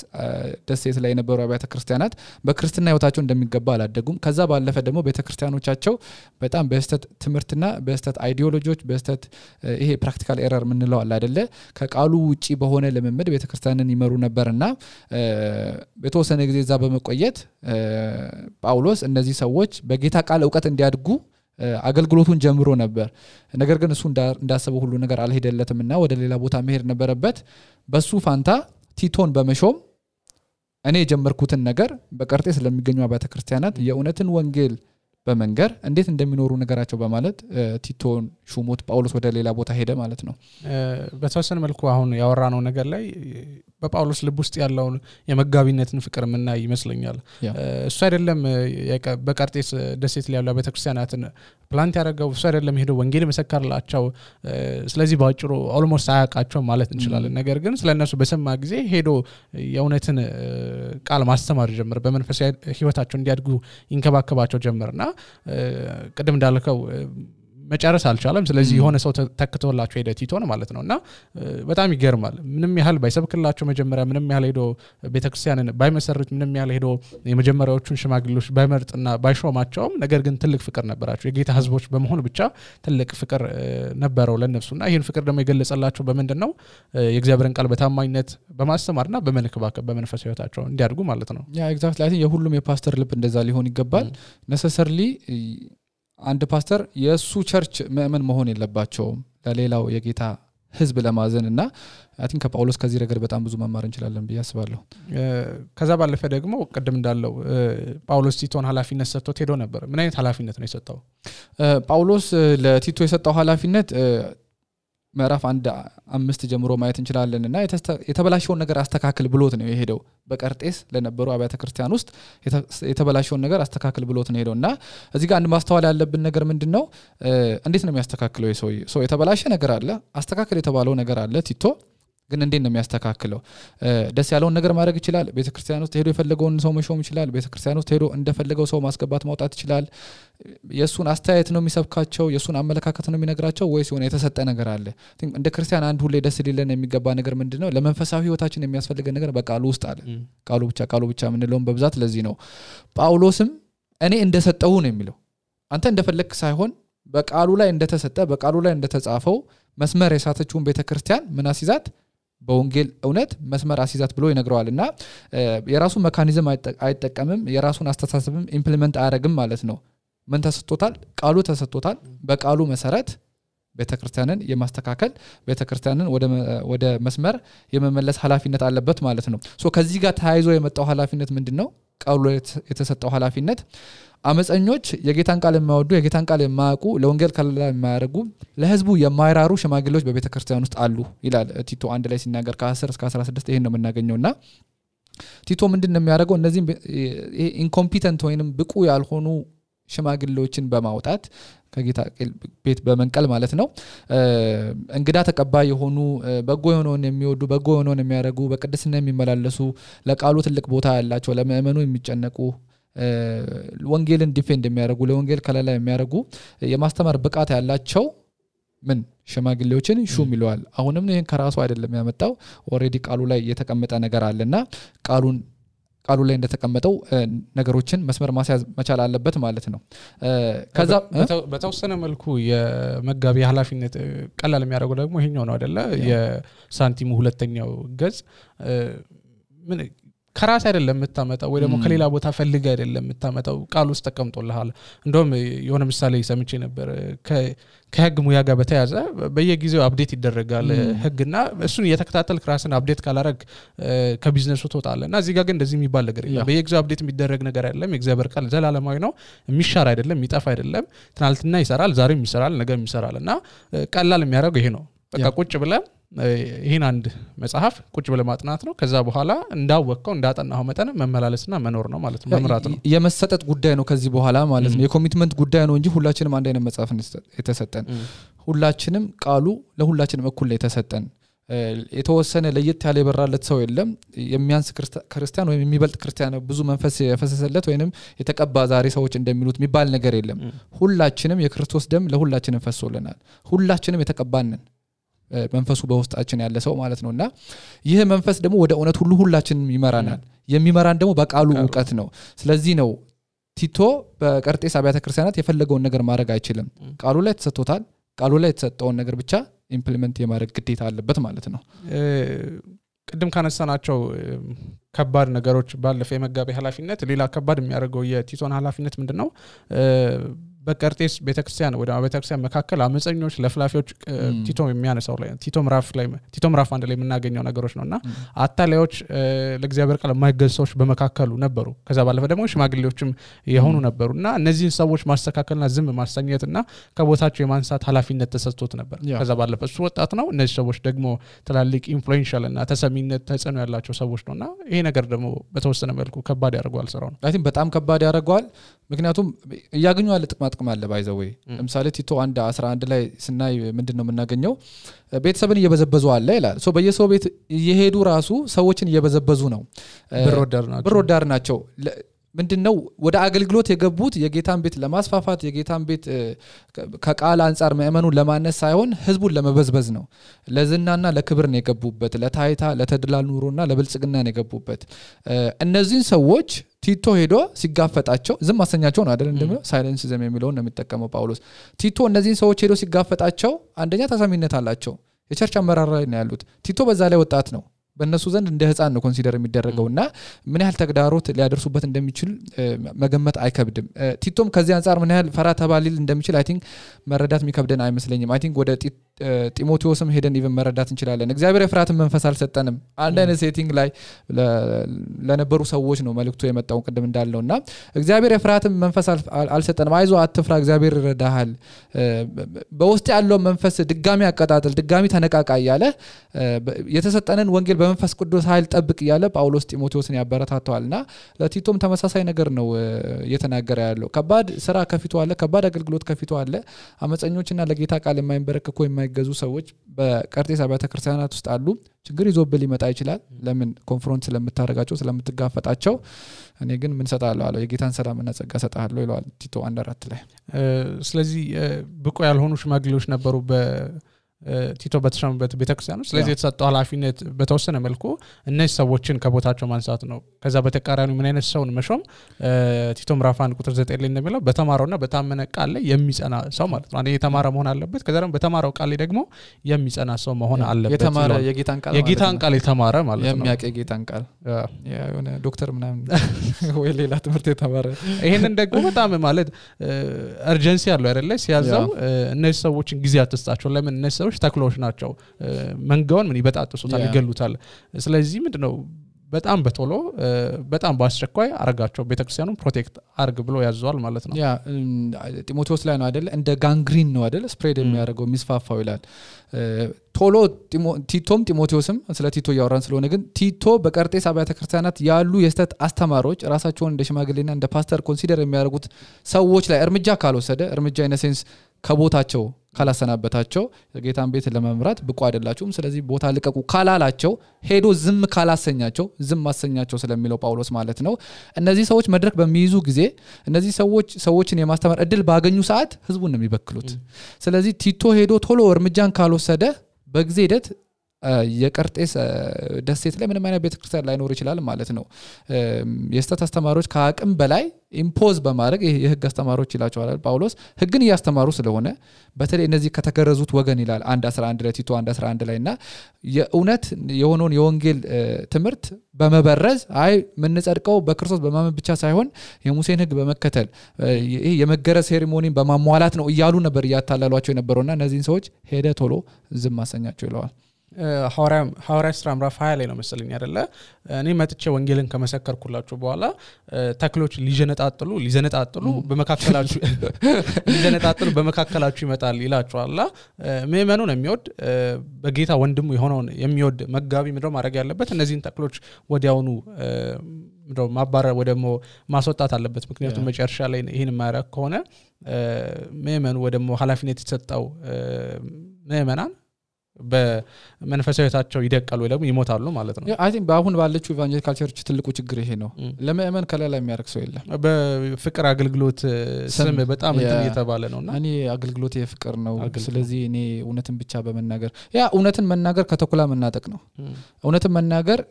ደሴት ላይ የነበሩ አብያተ ክርስቲያናት በክርስትና ህይወታቸው እንደሚገባ አላደጉም ከዛ ባለፈ ደግሞ ቤተክርስቲያኖቻቸው በጣም በስተት ትምርትና በስተት አይዲዮሎጂዎች በስተት ይሄ ፕራክቲካል ኤረር ምንለው አለ አይደለ ከቃሉ ውጪ በሆነ ለመመድ ቤተክርስቲያንን ይመሩ ነበርና በተወሰነ ጊዜ እዛ በመቆየት ጳውሎስ እነዚህ ሰዎች በጌታ ቃል ዕውቀት እንዲያድጉ አገልግሎቱን ጀምሮ ነበር ነገር ግን እሱ እንዳሰበው ሁሉ ነገር አልሄደለትምና ወደ ሌላ ቦታ መሄድ ነበረበት በሱ ፋንታ ቲቶን በመሾም እኔ የጀመርኩትን ነገር በቀርጤስ ለሚገኙ አብያተ ክርስቲያናት የእውነትን ወንጌል በመንገር እንዴት እንደሚኖሩ ነገራቸው በማለት ቲቶን ሹሞት ጳውሎስ ወደ ሌላ ቦታ ሄደ ማለት ነው በተወሰነ መልኩ አሁን ያወራነው ነገር ላይ በጳውሎስ ልብ ውስጥ ያለው የመጋቢነትን ፍቅር ምንና ይመስለኛል እሱ አይደለም በቀርጤስ ደሴት ላይ ያለው ቤተክርስቲያናትን ፕላንት ያደረገው እሱ አይደለም ሄዶ ወንጌል መሰከረላቸው ስለዚህ ባጭሩ ኦልሞስት አያቃቸው ማለት እንችላለን ነገር ግን ስለነሱ በሰማ ጊዜ ሄዶ የእውነትን ቃል ማስተማር ጀመረ በመንፈሳዊ ህይወታቸው እንዲያድጉ ይንከባከባቸው ጀመረና ቀደም እንዳልከው መጨረስ አልቻለም ስለዚህ የሆነ ሰው ተከተውላቸው ሄደ ቲቶን ማለት ነውና በጣም ይገርማል ምንም ያህል ባይሰብክላቸው መጀመሪያ ምንም ያህል ሄዶ ቤተክርስቲያንን ባይመሰርት ምንም ያህል ሄዶ የመጀመሪያዎቹን ሽማግሌዎች ባይመርጥና ባይሾማቸውም ነገር ግን ትልቅ ፍቅር ነበራቸው የጌታ ህዝቦች በመሆን ብቻ ትልቅ ፍቅር ነበረው ለነሱና ይሄን ፍቅር ደግሞ የገለጸላቸው በመንደነው የእግዚአብሔርን ቃል በታማኝነት በማስተማርና በመንከባከብ በመንፈሳዊ ህይወታቸው እንዲያድጉ ማለት ነው ያ ኤግዛክትሊ አይ ቲንክ የሁሉም የፓስተር ልብ እንደዛ ሊሆን ይገባል necessarily አንድ ፓስተር የሱ ቸርች ምእመን መሆን የለባቸውም ለሌላው የጌታ ህዝብ ለማዘንና አይ ቲንክ ከጳውሎስ ከዚህ ረገድ በጣም ብዙ መማር እንችላለን ብዬ አስባለሁ ከዛ ባለፈ ደግሞ ቀደም እንዳለው ጳውሎስ ቲቶን ኃላፊነት ሰጥቶት ሄዶ ነበር ምን አይነት ኃላፊነት ነው የሰጠው ጳውሎስ ለቲቶ የሰጠው ኃላፊነት ምዕራፍ 1:5 ጀምሮ ማየት እንችላለንና የተበላሸውን ነገር አስተካክል ብሎት ነው የሄደው በቀርጤስ ለነበሩ አብያተ ክርስቲያን ውስጥ የተበላሸውን ነገር አስተካክል ብሎት ነው ሄደውና እዚህ ጋር አንድ ማስተዋል ያለብን ነገር ምንድነው እንዴት ነው የሚያስተካክለው ሰው የተበላሸ ነገር አለ አስተካክል የተባለው ነገር አለ ቲቶ ግን እንዴት ነው የሚያስተካክለው ደስ ያለውን ነገር ማድረግ ይችላል ቤተክርስቲያን ውስጥ ሄዶ የፈለገውን ሰው መሾም ይችላል ቤተክርስቲያን ውስጥ ሄዶ እንደፈለገው ሰው ማስገባት ማውጣት ይችላል የሱን አስተያየት ነው የሚሰብካቸው የሱን አመለካከት ነው የሚነግራቸው ወይስ የሆነ የተሰጠ ነገር አለ እንደ ክርስቲያን አንድ ሁሌ ደስ ሊለን የሚገባ ነገር ምንድነው ለመንፈሳዊ ህይወታችን የሚያስፈልገን ነገር በቃሉ ውስጥ አለ ቃሉ ብቻ ምንለውን በብዛት ለዚህ ነው ጳውሎስም እኔ እንደሰጠው ነው የሚለው አንተ እንደፈለክ ሳይሆን በቃሉ ላይ እንደተሰጠ በቃሉ ላይ እንደተጻፈው መስመር የሳተችውን ቤተክርስቲያን ምን አስይዛት በወንጌል እውነት መስመር አስይዛት ብሎ ይነግረዋልና የራሱ ሜካኒዝም አይጠቀምም የራሱን አስተሳሰብም ኢምፕሊመንት አያረግም ማለት ነው ምን ተሰጥቶታል ቃሉ ተሰጥቶታል በቃሉ መሰረት ቤተክርስቲያንን የማስተካከል ቤተክርስቲያንን ወደ መስመር የመመለስ ኃላፊነት አለበት ማለት ነው ሶ ከዚህ ጋር ተያይዞ የመጣው ኃላፊነት ምንድነው ቃሉ የተሰጠው ኃላፊነት አመፀኞች የጌታን ቃል የማይወዱ የጌታን ቃል የማያውቁ ለወንጌል ከለላ የማያደርጉ ለህዝቡ የማይራሩ ሽማግሌዎች በቤተክርስቲያን ውስጥ አሉ ይላል ቲቶ 1 ላይ ሲናገር ከ10 እስከ 16 ይሄን ነው የምናገኘውና ቲቶ ምንድነው የሚያደርገው እነዚህ ኢንኮምፒተንት ወይንም ብቁ ያልሆኑ ሽማግሌዎችን በማውጣት ከጌታ ቤት በመንቀል ማለት ነው እንግዳ ተቀባይ የሆኑ በጎ የሆነውን የሚወዱ በጎ የሆነውን የሚያደርጉ በቅድስና የሚመላለሱ ለቃሉ ትልቅ ቦታ ያላቸው ለምእመኑ የሚጨነቁ ወንጌልን ዲፌንድ የሚያደርጉ ለወንጌል ከለላ የሚያደርጉ የማስተማር ብቃት ያላቸው ምን ሽማግሌዎችን ሹም ይለዋል አሁንም ይሄን ከራሱ አይደለም ያመጣው ኦሬዲ ቃሉ ላይ የተቀመጠ ነገር አለና ቃሉ ላይ እንደተቀመጠው ነገሮችን መስመር ማስያዝ መቻል አለበት ማለት ነው ከዛ በተወሰነ መልኩ የመጋቢ ኃላፊነት ቀላል የሚያደርገው ደግሞ ይሄኛው ነው አይደለ የሳንቲሙ ሁለተኛው ገጽ ምን ከራስ አይደለም የምታመጣው ወይ ደግሞ ከሌላ ቦታ ፈልገ አይደለም የምታመጣው ቃል ውስጥ ተቀምጦልሃል እንደውም የሆነ ምሳሌ ሰምቼ ነበር ከህግ ሙያ ጋር በተያዘ በየጊዜው አፕዴት ይደረጋል ህግና እሱን እየተከታተልክ ራስን አፕዴት ካላረግ ከቢዝነሱ ተወጣለና እዚህ ጋር ግን እንደዚህ የሚባል ነገር የለም በየጊዜው አፕዴት የሚደረግ ነገር አይደለም የእግዚአብሔር ቃል ዘላለማዊ ነው የሚሻር አይደለም የሚጠፋ አይደለም ትናንትና ይሰራል ዛሬም ይሰራል ነገም ይሰራልና ቀላል የሚያደርገው ይሄ ነው በቃ ቁጭ ብለን ይሄን አንድ መጽሐፍ ቁጭ ብለ ማጥናት ነው ከዛ በኋላ እንዳወቀው እንዳጠናው መጠን መመላለስና መኖር ነው ማለት ነው መምራት ነው የመሰጠት ጉዳይ ነው ከዚህ በኋላ ማለት ነው የኮሚትመንት ጉዳይ ነው እንጂ ሁላችንም አንድ አይነት መጽሐፍ የተሰጠን ሁላችንም ቃሉ ለሁላችንም እኩል ላይ የተሰጠን የተወሰነ ለየት ያለ ይበራለት ሰው የለም የሚያንስ ክርስቲያን ወይም የሚበልጥ ክርስቲያን ብዙ መንፈስ የፈሰሰለት ወይንም የተቀባ ዛሬ ሰዎች እንደሚሉት የሚባል ነገር የለም ሁላችንም የክርስቶስ ደም ለሁላችንም ፈሶልናል ሁላችንም የተቀባንን መንፈሱ በውስጣችን ያለ ሰው ማለት ነውና ይሄ መንፈስ ደግሞ ወደ እውነት ሁሉ ሁላችንም ይመራናል የሚመራን ደግሞ በቃሉ ዕውቀት ነው ስለዚህ ነው ቲቶ በቀርጤስ አብያተ ክርስቲያናት የፈለገውን ነገር ማድረግ አይችልም ቃሉ ላይ ተሰጥቶታል ቃሉ ላይ የተሰጠውን ነገር ብቻ ኢምፕሊመንት የማድረግ ግዴታ አለበት ማለት ነው ቅድም ካነሳናቸው ከባድ ነገሮች ባለፈ የመጋቢ ኃላፊነት ሌላ ከባድ የሚያደርገው የቲቶን ኃላፊነት ምንድነው በቀርጤስ ቤተክርስቲያን ወደ ቤተክርስቲያን መካከል አመፀኞች ለፍላፊዎች ቲቶ የሚያነሳው ላይ ቲቶ ምዕራፍ አንድ ላይ የምናገኘው ነገሮች ነውና አታላዮች ለእግዚአብሔር ቃል የማይገዙዎች በመካከሉ ነበሩ ከዛ ባለፈ ደግሞ ሽማግሌዎችም የሆኑ ነበሩና እነዚህን ሰዎች ማስተካከልና ዝም ማሰኘትና ከቦታቸው የማንሳት ኃላፊነት ተሰጥቶት ነበር ከዛ ባለፈ እሱ ወጣት ነው እነዚህ ሰዎች ደግሞ ትላልቅ ኢንፍሉዌንሻል እና ተሰሚነት ተጽዕኖ ያላቸው ሰዎች ነውና ይሄ ነገር ደግሞ በተወሰነ መልኩ ከባድ ያደርገዋል ስራው አይ ቲንክ በጣም ከባድ ያደርገዋል ምክንያቱም ያገኙ አለ ጥቅም አለ ባይዘው ለምሳሌ ቲቶ 1:11 ላይ ስናይ ምንድነው የምናገኘው ቤተሰብን እየበዘበዙ አለ ይላል ሶ በየሰው ቤት እየሄዱ ራሱ ሰዎችን እየበዘበዙ ነው ብር ወዳድ ናቸው ምንድነው ወደ አገልግሎት የገቡት የጌታን ቤት ለማስፋፋት የጌታን ቤት ከቃል አንፃር ምእመኑን ለማነስ ሳይሆን ህዝቡን ለመበዝበዝ ነው ለዝናና ለክብር ነው የገቡበት ለታይታ ለተድላል ኑሮና ለብልጽግና ነው የገቡበት እነዚህን ሰዎች ቲቶ ሄዶ ሲጋፈጣቸው ዝም ማሰኛቸው ነው አይደል እንደም ሳይለንስ ዘም የሚለው ነው የሚጠቀመው ጳውሎስ ቲቶ እነዚህን ሰዎች ሄዶ ሲጋፈጣቸው አንደኛ ተሰሚነት አላቸው የቸርች አመራር ላይ ነው ያሉት ቲቶ በዛ ላይ ወጣት ነው በእነሱ ዘንድ እንደ ህፃን ነው ኮንሲደር የሚደረገውና ምን ያህል ተግዳሮት ሊያደርሱበት እንደሚችል መገመት አይከብድም ቲቶም ከዚህ አንፃር ምን ያህል ፈራ ተባሊል እንደሚችል አይ ቲንክ መረዳት የሚከብደን አይመስለኝም አይ ቲንክ ወደ ጢሞቴዎስም ሄደን ኢቭን መረዳት እንችላለን እግዚአብሔር የፍራትን መንፈስ አልሰጠንም አንድ አይነት ሴቲንግ ላይ ለነበሩ ሰዎች ነው መልእክቱ የመጣው ቅድም እንዳለውና እግዚአብሔር የፍራትን መንፈስ አልሰጠንም አይዞ አትፍራ እግዚአብሔር ይረዳሃል በውስጥ ያለው መንፈስ ድጋሚ አቀጣጥል ድጋሚ ተነቃቃ ያለ የተሰጠነን ወንጌል በመንፈስ ቅዱስ ኃይል ጠብቅ ያለ ጳውሎስ ጢሞቴዎስን ያበረታታዋልና ለቲቶም ተመሳሳይ ነገር ነው እየተናገረ ያለው ከባድ ስራ ከፊቱ አለ ከባድ አገልግሎት ከፊቱ አለ አመፀኞችና ለጌታ ቃል የማይንበረከኩ የማይገዙ ሰዎች በቀርጤስ አብያተ ክርስቲያናት ውስጥ አሉ ችግር ይዞብል ሊመጣ ይችላል ለምን ኮንፍሮንት ስለምታረጋቸው ስለምትጋፈጣቸው እኔ ግን ምን ሰጣለሁ አለው የጌታን ሰላምና ጸጋ ሰጣለሁ ይላል ቲቶ 1:4 ላይ ስለዚህ ብቁ ያልሆኑ ሽማግሌዎች ነበሩ ቲቶ በተሻመበት ቤተክርስቲያን ነው ስለዚህ የተሰጠው ኃላፊነት በተወሰነ መልኩ እነዚህ ሰዎችን ከቦታቸው ማንሳት ነው ከዛ በተቃራኒው ምን አይነት ሰውን መሾም ቲቶ ምዕራፍ 1:9 ላይ እንደሚለው በተማረውና በታመነ ቃል ላይ የሚጸና ሰው ማለት ነው አንዴ የተማረ መሆን አለበት ከዛ ደግሞ በተማረው ቃል ላይ ደግሞ የሚጸና ሰው መሆን አለበት የተማረ የጌታን ቃል የተማረ ማለት ነው የሚያውቅ የጌታን ቃል የሆነ ዶክተር ምናምን ወይ ሌላ ትምህርት የተማረ ይሄንን ደግሞ በጣም ማለት አርጀንሲ ያለው አይደለ ሲያዛው እነዚህ ሰዎችን ጊዜ አትስጣቸው ለምን እነዚህ ተክሎች ናቸው መንጋውን ምን ይበጣጥሱታል ይገሉታል ስለዚህ ምንድነው በጣም በቶሎ በጣም ባስቸኳይ አረጋቸው ቤተክርስቲያኑን ፕሮቴክት አርግ ብሎ ያዘዋል ማለት ነው። ያ ጢሞቴዎስ ላይ ነው አይደል እንደ ጋንግሪን ነው አይደል ስፕሬድ የሚያደርገው የሚስፋፋው ይላል። ቶሎ ቲቶም ጢሞቴዎስም ስለ ቲቶ ያወራን ስለሆነ ግን ቲቶ በቀርጤስ አብያተ ክርስቲያናት ያሉ የስተት አስተማሪዎች ራሳቸውን እንደ ሽማግሌና እንደ ፓስተር ኮንሲደር የሚያደርጉት ሰዎች ላይ እርምጃ ካልወሰደ እርምጃ ኢነሴንስ ከቦታቸው ካላሰናበታቸው የጌታን ቤት ለመምራት ብቁ አይደላችሁም ስለዚህ ቦታ ልቀቁ ካላላቸው ሄዶ ዝም ካላሰኛቸው ዝም ማሰኛቸው ስለሚለው ጳውሎስ ማለት ነው። እነዚህ ሰዎች መድረክ በሚይዙ ጊዜ እነዚህ ሰዎችን የማስተማር እድል ባገኙ ሰዓት ህዝቡን ነው የሚበክሉት። ስለዚህ ቲቶ ሄዶ ቶሎ እርምጃን ካልወሰደ በጊዜ ሂደት የቀርጤስ ደሴት ላይ ምንም አይነት ቤተክርስቲያን ላይኖር ይችላል ማለት ነው። የስተት አስተማሪዎች ከአቅም በላይ ኢምፖዝ በማድረግ የህግ አስተማሪዎች ይላቸዋል ጳውሎስ ህግን ያስተማሩ ስለሆነ በተለይ እነዚህ ከተገረዙት ወገን ይላል 1:11 ላይ ቲቶ 1:11 ላይና የእውነት የሆነውን የወንጌል ትምህርት በመበረዝ አይ ምን ጸድቀው በክርስቶስ በማመን ብቻ ሳይሆን የሙሴን ህግ በመከተል ይሄ የመገረዝ ሴሪሞኒን በማሟላት ነው እያሉ ነበር ያታላሏቸው የነበረውና እነዚህን ሰዎች ሄደ ቶሎ ዝም ማሰኛቸው ይለዋል። ሐዋርያ ሥራ ምዕራፍ 20 ላይ ነው መሰለኝ አይደለ እኔ መጥቼ ወንጌልን ከመሰከርኩላችሁ በኋላ ተክሎች ሊዘነጣጥሉ በመካከላችሁ ይመጣል ይላችኋል። ምእመኑን የሚወድ በጌታ ወንድሙ የሆነውን የሚወድ መጋቢ ምንድነው ማድረግ ያለበት እነዚህን ተክሎች ወዲያውኑ ምንድነው ማባረር ወደሞ ማስወጣት አለበት። ምክንያቱም መጨረሻ ላይ ይሄን ማያረግ ከሆነ ምእመኑ ወደሞ ኃላፊነት የተሰጠው ምእመናን በመንፈሳዊታቸው ይደቀሉ ወይ ደግሞ ይሞታሉ ማለት ነው። አይ ቲንክ በአሁን ባለችው ኢቫንጀሊካል ቸርች ትልቁ ችግር ይሄ ነው። ለምእመን ከለላ የሚያርክ ሰው የለም። በፍቅር አገልግሎት ስም በጣም እንትን እየተባለ ነውና እኔ አገልግሎት የፍቅር ነው ስለዚህ እኔ እውነትን ብቻ በመናገር ያ እውነትን መናገር ከተኩላ መናጠቅ ነው። እውነትን መናገር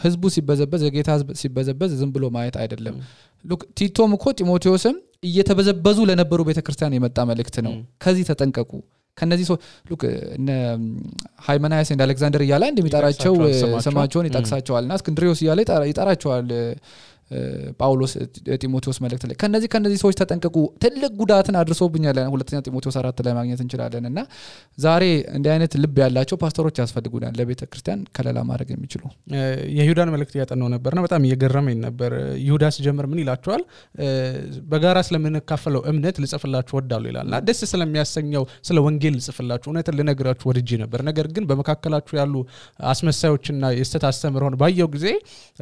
ህዝቡ ሲበዘበዝ የጌታ ህዝብ ሲበዘበዝ ዝም ብሎ ማየት አይደለም። ሉክ ቲቶም እኮ ጢሞቴዎስም እየተበዘበዙ ለነበሩ ቤተክርስቲያን የመጣ መልእክት ነው። ከዚህ ተጠንቀቁ ከነዚህ ሰው ሉክ እነ ሃይመናያስ እና አሌክዛንደር ያላ እንደሚጣራቸው ስማቸውን ይጣቅሳቸዋልና እስክንድሪዮስ ያላ ይጣራቸዋል ጳውሎስ ጢሞቴዎስ መልእክት ላይ ከነዚህ ሰዎች ተጠንቀቁ ትልቅ ጉዳትን አድርሶብኛል ሁለተኛ ጢሞቴዎስ 4 ላይ ማግኘት እንችላለንና ዛሬ እንዲህ አይነት ልብ ያላቸው ፓስተሮች ያስፈልጉናል ለቤተክርስቲያን ከለላ ማድረግ የሚችሉ። የይሁዳን መልእክት ያጠናው ነበርና በጣም እየገረመኝ ነበር። ይሁዳ ሲጀምር ምን ይላቸዋል በጋራ ስለምንካፈለው እምነት ልጽፍላችሁ ወዳለሁ ይላልና ደስ ስለሚያሰኘው ስለ ወንጌል ልጽፍላችሁ እውነትን ልነግራችሁ ወድጄ ነበር ነገር ግን በመካከላችሁ ያሉ አስመሳዮችና የስተት አስተምሮን ባየው ጊዜ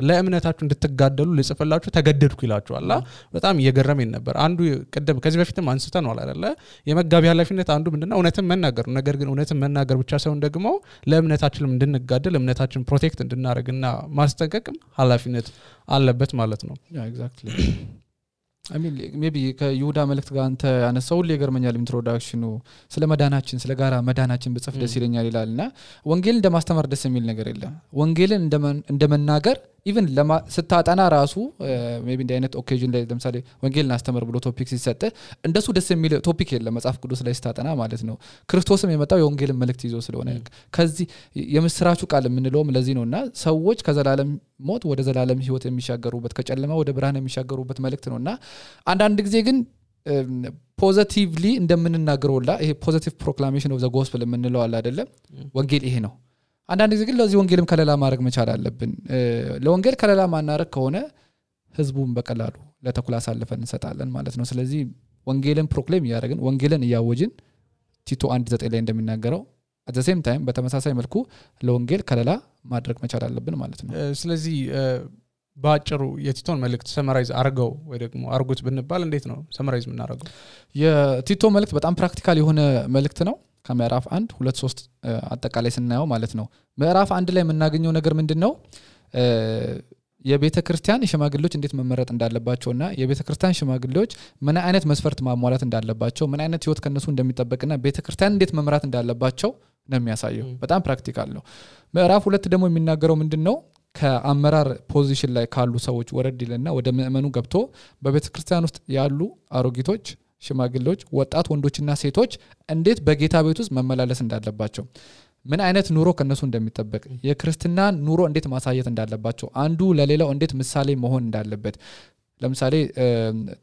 ለእምነታችሁ እንድትጋደሉ ጽፈላችሁ ተገደድኩ ይላችኋል። በጣም እየገረመኝ ነበር። አንዱ ቀደም ከዚህ በፊትም አንስተናል አይደለ የመጋቢ ኃላፊነት አንዱ ምንድነው እውነትን መናገር ነው። ነገር ግን እውነትን መናገር ብቻ ሳይሆን ደግሞ ለእምነታችንም እንድንጋደል እምነታችንን ፕሮቴክት እንድናደርግና ማስጠንቀቅም ኃላፊነት አለበት ማለት ነው። ያ ኤግዛክትሊ I mean maybe ከይሁዳ መልእክት ጋር አንተ ያነሳው ለገርመኛል ኢንትሮዳክሽኑ ስለ መዳናችን ስለ ጋራ መዳናችን በጽፍ ደስ ይለኛል ይላልና ወንጌልን እንደማስተማር ደስ የሚል ነገር የለም። ወንጌልን እንደመናገር ኢቭን ስታጠና ራሱ ሜቢ እንደ አይነት ኦኬዥን ላይ ለምሳሌ ወንጌልን አስተምር ብሎ ቶፒክ ሲሰጥ እንደሱ ደስ የሚል ቶፒክ የለም መጽሐፍ ቅዱስ ላይ ስታጠና ማለት ነው። ክርስቶስም የመጣው የወንጌልን መልእክት ይዞ ስለሆነ ከዚህ የምስራቹ ቃል የምንለውም ለዚህ ነውና ሰዎች ከዘላለም ሞት ወደ ዘላለም ህይወት የሚሻገሩበት ከጨለማ ወደ ብርሃን የሚሻገሩበት መልእክት ነውና አንዳንድ ጊዜ ግን ፖዚቲቭሊ እንደምንናገረውላ ይሄ ፖዚቲቭ ፕሮክላሜሽን ኦፍ ዘ ጎስፔል የምንለው አለ አይደለም ወንጌል ይሄ ነው። አንዳንድ ጊዜ ግን ለዚህ ወንጌልም ከለላ ማድረግ መቻል አለብን። ለወንጌል ከለላ ማናረግ ከሆነ ህዝቡን በቀላሉ ለተኩላ አሳልፈን እንሰጣለን ማለት ነው። ስለዚህ ወንጌልን ፕሮክሌም ያደረግን ወንጌልን ያወጅን ቲቶ 1:9 ላይ እንደሚናገረው at the same time በተመሳሳይ መልኩ ለወንጌል ከለላ ማድረግ መቻል አለብን ማለት ነው። ስለዚህ ባጭሩ የቲቶን መልእክት ሰመራይዝ አርገው ወይ ደግሞ አርጉት ብንባል እንዴት ነው ሰመራይዝ የምናደርገው? የቲቶ መልእክት በጣም ፕራክቲካል የሆነ መልእክት ነው። ከምዕራፍ 1 2 3 አጠቃላይ ስናየው ማለት ነው ምዕራፍ 1 ላይ የምናገኘው ነገር ምንድነው የቤተክርስቲያን ሽማግሌዎች እንዴት መመረጥ እንዳለባቸውና የቤተክርስቲያን ሽማግሌዎች ምን አይነት መስፈርት ማሟላት እንዳለባቸው ምን አይነት ህይወት ከነሱ እንደሚጠበቅና ቤተክርስቲያን እንዴት መምራት እንዳለባቸው ነው የሚያሳየው። በጣም ፕራክቲካል ነው። ምዕራፍ 2 ደግሞ የሚናገረው ምንድነው ከአመራር ፖዚሽን ላይ ካሉ ሰዎች ወረድ ይልና ወደ ምእመኑ ገብቶ በቤተክርስቲያን ውስጥ ያሉ አሮጊቶች ሽማግሌዎች ወጣት ወንዶችና ሴቶች እንዴት በጌታ ቤት ውስጥ መመላለስ እንዳለባቸው ምን አይነት ኑሮ ከነሱ እንደሚጠበቅ የክርስቲና ኑሮ እንዴት ማሳየት እንዳለባቸው አንዱ ለሌላው እንዴት ምሳሌ መሆን እንዳለበት ለምሳሌ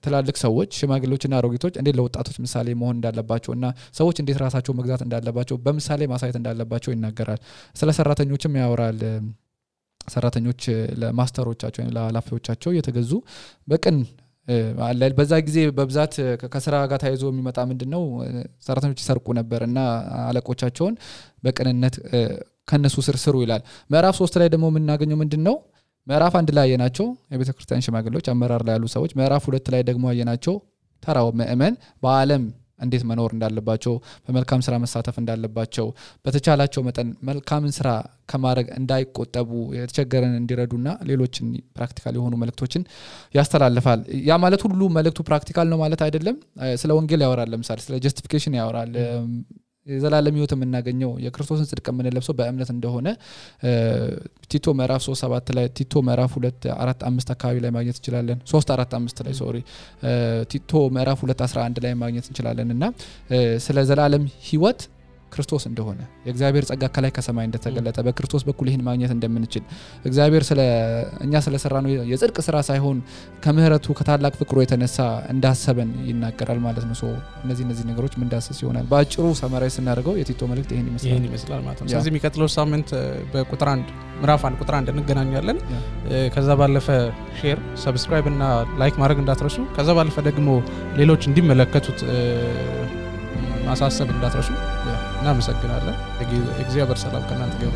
ትላልቅ ሰዎች ሽማግሌዎችና አሮጊቶች እንዴት ለወጣቶች ምሳሌ መሆን እንዳለባቸውና ሰዎች እንዴት ራሳቸው መግዛት እንዳለባቸው በምሳሌ ማሳየት እንዳለባቸው ይናገራል። ስለ ሰራተኞችም ያወራል ሰራተኞች ለማስተሮቻቸው ወይም ለኃላፊዎቻቸው የተገዙ በቀን አላል በዛ ጊዜ በብዛት ከስራ ጋር ታይዞ የሚመጣ ምንድነው ሰራተኞች ይሰርቁ ነበርና አለቆቻቸውን በቀንነት ከነሱ ስሩ ይላል ምዕራፍ 3 ላይ ደግሞ የምናገኘው ምንድነው ምዕራፍ 1 ላይ ያየናቸው የቤተክርስቲያን ሽማግሌዎች አመራር ላይ ያሉ ሰዎች ምዕራፍ 2 ላይ ደግሞ ያየናቸው ተራው ምእመን በአለም እንዴት መኖር እንዳለባቸው በመልካም ስራ መሳተፍ እንዳለባቸው በተቻላቸው መጠን መልካምን ስራ ከማድረግ እንዳይቆጠቡ የተቸገረን እንዲረዱና ሌሎችን ፕራክቲካል የሆኑ መልእክቶችን ያስተላልፋል ያ ማለት ሁሉ መልእክቱ ፕራክቲካል ነው ማለት አይደለም ስለ ወንጌል ያወራል ለምሳሌ ስለ ጀስቲፊኬሽን ያወራል የዘላለም ህይወት የምናገኘው የክርስቶስን ጽድቅ የምንለብሰው በእምነት እንደሆነ ቲቶ ምዕራፍ 3:7 ላይ ቲቶ ምዕራፍ 2:4-5 አካባቢ ላይ ማግኘት እንችላለን 3:4-5 ላይ ቲቶ ምዕራፍ 2:11 ላይ ማግኘት እንችላለንና ስለ ዘላለም ህይወት ክርስቶስ እንደሆነ የእግዚአብሔር ጸጋ ከላይ ከሰማይ እንደተገለጠ በክርስቶስ በኩል ይሄን ማግኘት እንደምንችል እግዚአብሔር እኛ ስለሰራነው የጽድቅ ስራ ሳይሆን ከምህረቱ ከታላቅ ፍቅሩ የተነሳ እንዳሰበን ይናገራል ማለት ነው እነዚህ ነገሮች ምን ዳሰስ ይሆናል በአጭሩ ሰማራይ ስናደርገው የቲቶ መልእክት ይሄን ይመስላል ማለት ነው ስለዚህ የሚቀጥለው ሳምንት በቁጥር 1 ምዕራፍ 1 ቁጥር 1 እንገናኛለን ከዛ ባለፈ ሼር ሰብስክራይብ እና ላይክ ማድረግ እንዳትረሱ ከዛ ባለፈ ደግሞ ሌሎች እንዲመለከቱት ማሳሰብ እንዳትረሱ እናመሰግናለን እግዚአብሔር ሰላም ከእናንተ ጋር